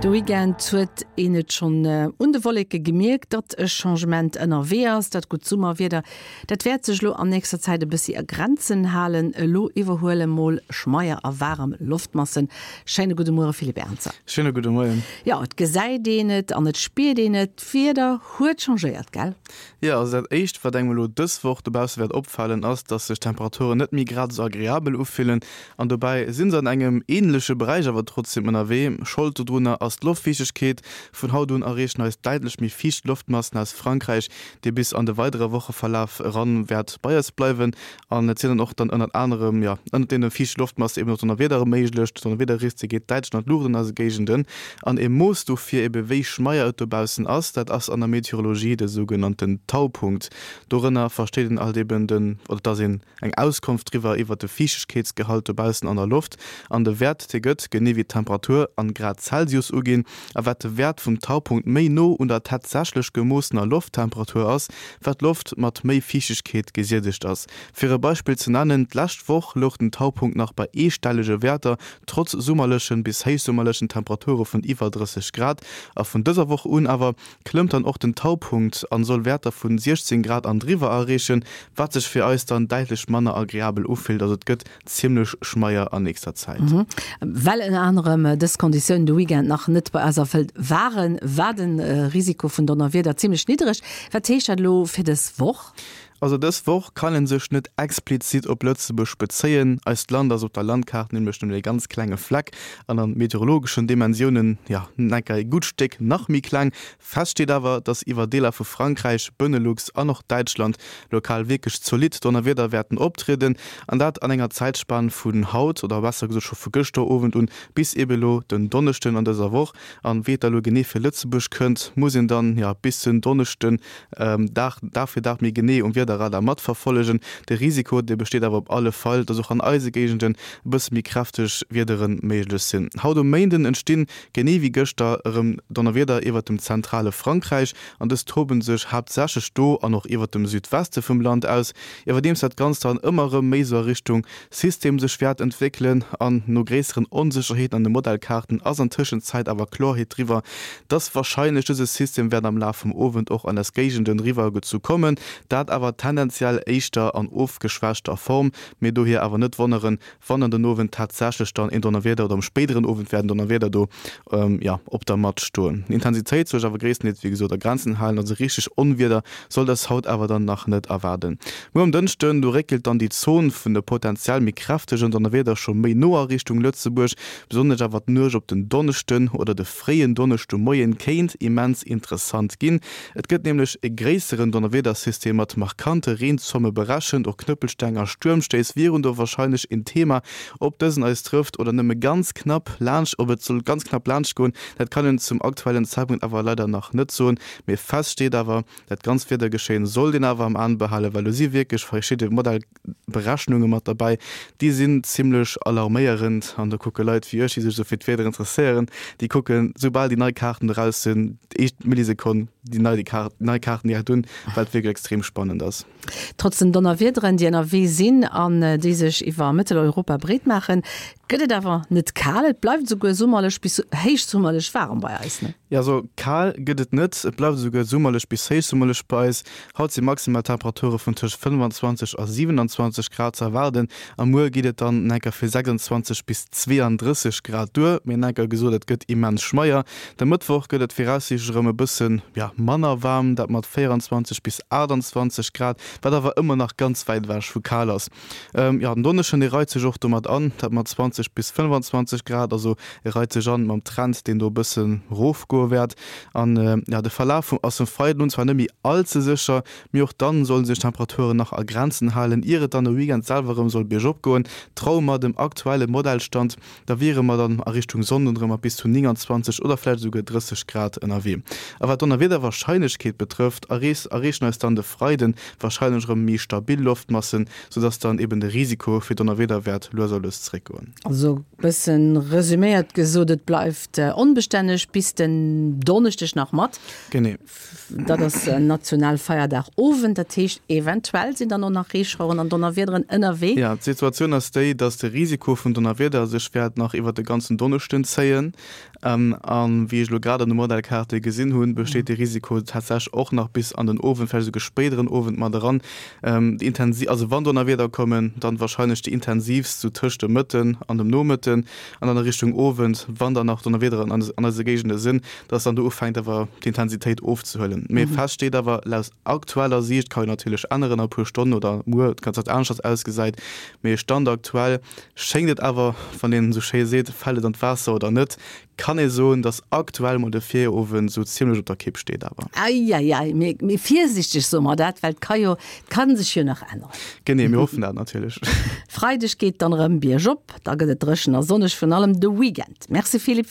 De Weekend huet een et schonn un de Wolleke gemierkt, datt e Changement ënnerwee ass. Dat gutt Summerwieder, dat wäert sech elo an nächster Zäit e bëssi a Grenzen halen. Elo iwwerhuele mol schmeier a waarem Loftmassen. Schéine gudde Muere Philippe Ernzer. Schéine gudde Moien. Jo, et gesäit een et an et spiert een et, d'Wieder huet changéiert, gell? Jo, also dat éischt wat engem elo dës Woch dobausse wäert opfalen, ass, dass sech d'Temperaturen net méi grad esou agreabel ufillen. An dobäi si se an engem änleche Beräich awer trotzdeem ënnerwee. Schold dodrunner ass d'Loftfiichtegkeet. Vun haut un erreechen eis däitlech méi fiicht Loftmassen aus Frankräich, déi bis an de weidere Wocheverlaf eran wäert bei eis bleiwen. An et sinn dann och dann ënnert anerem, jo, ënnert deene fiichte Loftmasse eben och Donnerwiedere méiglech. D'Donnerwiederrisk geet däitlech an d'Luucht an eise Géigenden. An e Mooss dofir ebe wéi schmeier et dobaussen ass, dat ass an der Meteorologie de sougenannten Taupunkt. Dorënner versteet een alt eben den, oder dass een eng Auskonft driwwer iwwert de Fiichtegkeetsgehalt dobaussen an der Loft an de Wäert, dee gëtt, genee wéi d'Temperatur, an Grad Celsius uginn. A wat de Wäert vum Taupunkt méi no un der tatsächlech gemoossener Lofttemperatur ass, wat d'Loft mat méi Fiichtegkeet gesiedegt ass. Fir e Beispill ze nennen, D'lescht Woch louch den Taupunkt nach bei eestellege Wäerter, trotz summerlechen bis héichsummerlechen Temperature vun iwwer 30 Grad. A vun dëser Woch un awer klëmmt dann och den Taupunkt an soll Wäerter vun 16 Grad an driwwer erreechen, wat sech fir eis dann däitlech manner agreabel ufillt. Also et gëtt zimmlech schmeier an nächster Zäit. Well ënner anerem dës Konditiounen de Weekend nach net bei eis erfëllt waren, war de Risiko vun Donnerwieder zimmlech niddereg. Wat heescht dat elo fir dës Woch? Also dës Woch kann en sech net explizit op Lëtzebuerg bezéien. Eist Land ass op der Landkaart nämlech nëmmen e ganz klenge Fleck an an meteorologeschen Dimensiounen, jo, enker e gutt Stéck nach méi kleng. Fest steet awer, dass iwwer Deeler vu Frankräich, Benelux an och Däitschland lokal wierklech zolidd Donnerwieder wäerten optrieden an dat an enger Zäitspan vun haut, oder besser gesot scho vu gëschter Owend un, bis ebe lo den Donneschden an dëser Woch. An wéi et da lo genee fir Lëtzebuerg kënnt, muss een dann, jo, bis den Donneschden Dag, Dag fir Dag méi genee um Wiederradar matverfollegen. De Risiko, dee besteet awer op alle Fall, dass och an eise Géigenden e bësse méi kräfteg Wiedere méiglech sinn. Haut um Méinden entstinn, genee wéi gëschter, erëm Donnerwieder iwwert dem zentrale Frankräich an dës toben sech haaptsächlech do an och iwwert dem Südweste vum Land aus, iwwerdeems dat Ganzt dann ëmmer erëm méi sou a Richtung System sech wäert entwéckelen an no gréisseren Onsécherheeten an de Modellkaarten ass an Tëschenzäit awer Klorheet driwwer, dass warscheinlech dëse System wäert am Laf vum Owend och an eis Géigenden riwwer gezu kommen, dat awer tendenziell éischter an ofgeschwächter Form. Mee dohier awer net wonneren, wann an den Owend tatsächlech dann een Donnerwieder oder am spéideren Owend wäert en Donnerwieder do jo op der Matt stoen. D'Intensitéit soll sech awer gréisstendeels wéi gesot a Grenzen halen, also richteg Onwieder soll dës haut awer dann nach net erwaarden. Muer um Dënschden, do réckelt dann déi Zon vun de potenziell méi kräftegen Donnerwieder scho méi no a Richtung Lëtzebuerg. Besonnesch awer d'Nuecht op den Donneschden oder de fréien Donneschdemoien kéint immens interessant ginn. Et gëtt nämlech e gréisseren Donnerwiedersystem mat markante Reenzomme berechent. Och Knëppelsteng a Stuermstéiss wieren do warscheinlech en Thema. Ob dësen eis trëfft oder nëmme ganz knapp laanscht, ob et soll ganz knapp laanscht goen, dat kann een zum aktuellen Zäitpunkt awer leider nach net soen. Mee fest steet awer, Dat ganzt Wiedergeschéien sollt een awer am An behalen, well do si wierklech verschidde Modellberechnunge mat derbäi, déi sinn zimmlech alarméierend. An do kucke Leit wéi ech, déi sech esou fir d'Wieder interesséieren, déi kucken, soubal déi nei Kaarten eraus sinn, déi éischt Millisekonn déi nei nei Kaarten direkt un, well et wierklech extrem spannend ass. Trotz den Donnerwiederen, déi ënnerwee sinn an déi sech iwwer Mëtteleuropa breet maachen, gëtt et awer net kal. Et bleift esouguer summerlech bis héichsummerlech waarem bei eis, ne? Jo, also kal gëtt et net, et bleift esouguer summerlech bis héichsummerlech bei eis. Haut si maximal Temperature vun tëscht 25 a 27 Grad ze erwaarden a muer geet et dann enker fir 26 bis 32 Grad duer. Mee enker gesot, et gëtt immens schmeier. De Mëttwoch gëtt et viraussiichtlech erëm e bëssen, ja, manner waarm, dat mat 24 bis 28 Grad, wat awer ëmmer nach ganz wäit ewech vu kal ass. Jo, den Donneschden, dee reit sech och domat an, dat mat 20 bis 25 Grad, also e reit sech an mam Trend, deen do e bësse rofgoe wäert. An jo, de Verlaf vum ass vum Freiden un zwar net méi all ze sécher, mee och dann solle sech d'Temperaturen nach a Grenzen halen, ier et dann de Weekend selwer erëm soll biergop goen. Traue mer dem aktuelle Modellstand, da wiere mer dann a Richtung Sonnden erëm mat bis zu 29 oder vläicht esouguer 30 Grad ënnerwee. A wat d'Donnerwiederwarscheinlechkeet betrëfft, erreechen eis dann de Freiden. Warscheinlech erëm méi stabil Loftmassen, soudass dann eben de Risiko fir Donnerwieder wäert lues a lues zeréckgoen. Also bëssen resüméiert gesot, et bleift onbestänneg bis den Donneschdeg nach mat. Genee. Dat ass Nationalfeierdag Owend, dat heescht eventuell sinn dann och nach Reeschaueren an Donnerwiederen ënnerwee. Jo, d'Situatioun ass déi, dass de Risiko vun Donnerwieder sech wäert nach iwwert de ganzen Donneschden zéien. A wéi ech elo grad an de Modellkaarte gesinn hunn, besteet de Risiko tatsächlech och nach bis an den Owend, vläicht esouguer spéideren Owend mat eran. Déi intensi, also wann Donnerwieder kommen, dann warscheinlech déi intensiivst sou tëscht dem Mëtten an dem Nomëtten an dann a Richtung Owend, wann dann nach Donnerwiederen an eise Géigende sinn, dass dann do ufänkt awer d'Intensitéit ofzehuelen. Mee fest steet awer, laut aktueller Siicht, ka jo natierlech änneren a puer Stonnen oder muer ganz dat aneschters ausgesäit, mee Stand aktuell Schéngt et awer, wann een esou schéi seet, fält et an d'Waasser oder net, kann ee soen, dass aktuell mol de Virowend esou zimmlech op der Kipp steet. Awer. Eieiei, mee mee virsichteg soe mer dat, well et ka jo, et ka sech jo nach änneren. Genee, mir hoffen dat natierlech. Freideg geet dann erëm biergop, da gëtt et dréchen a sonneg, virun allem de Weekend. Merci Philippe.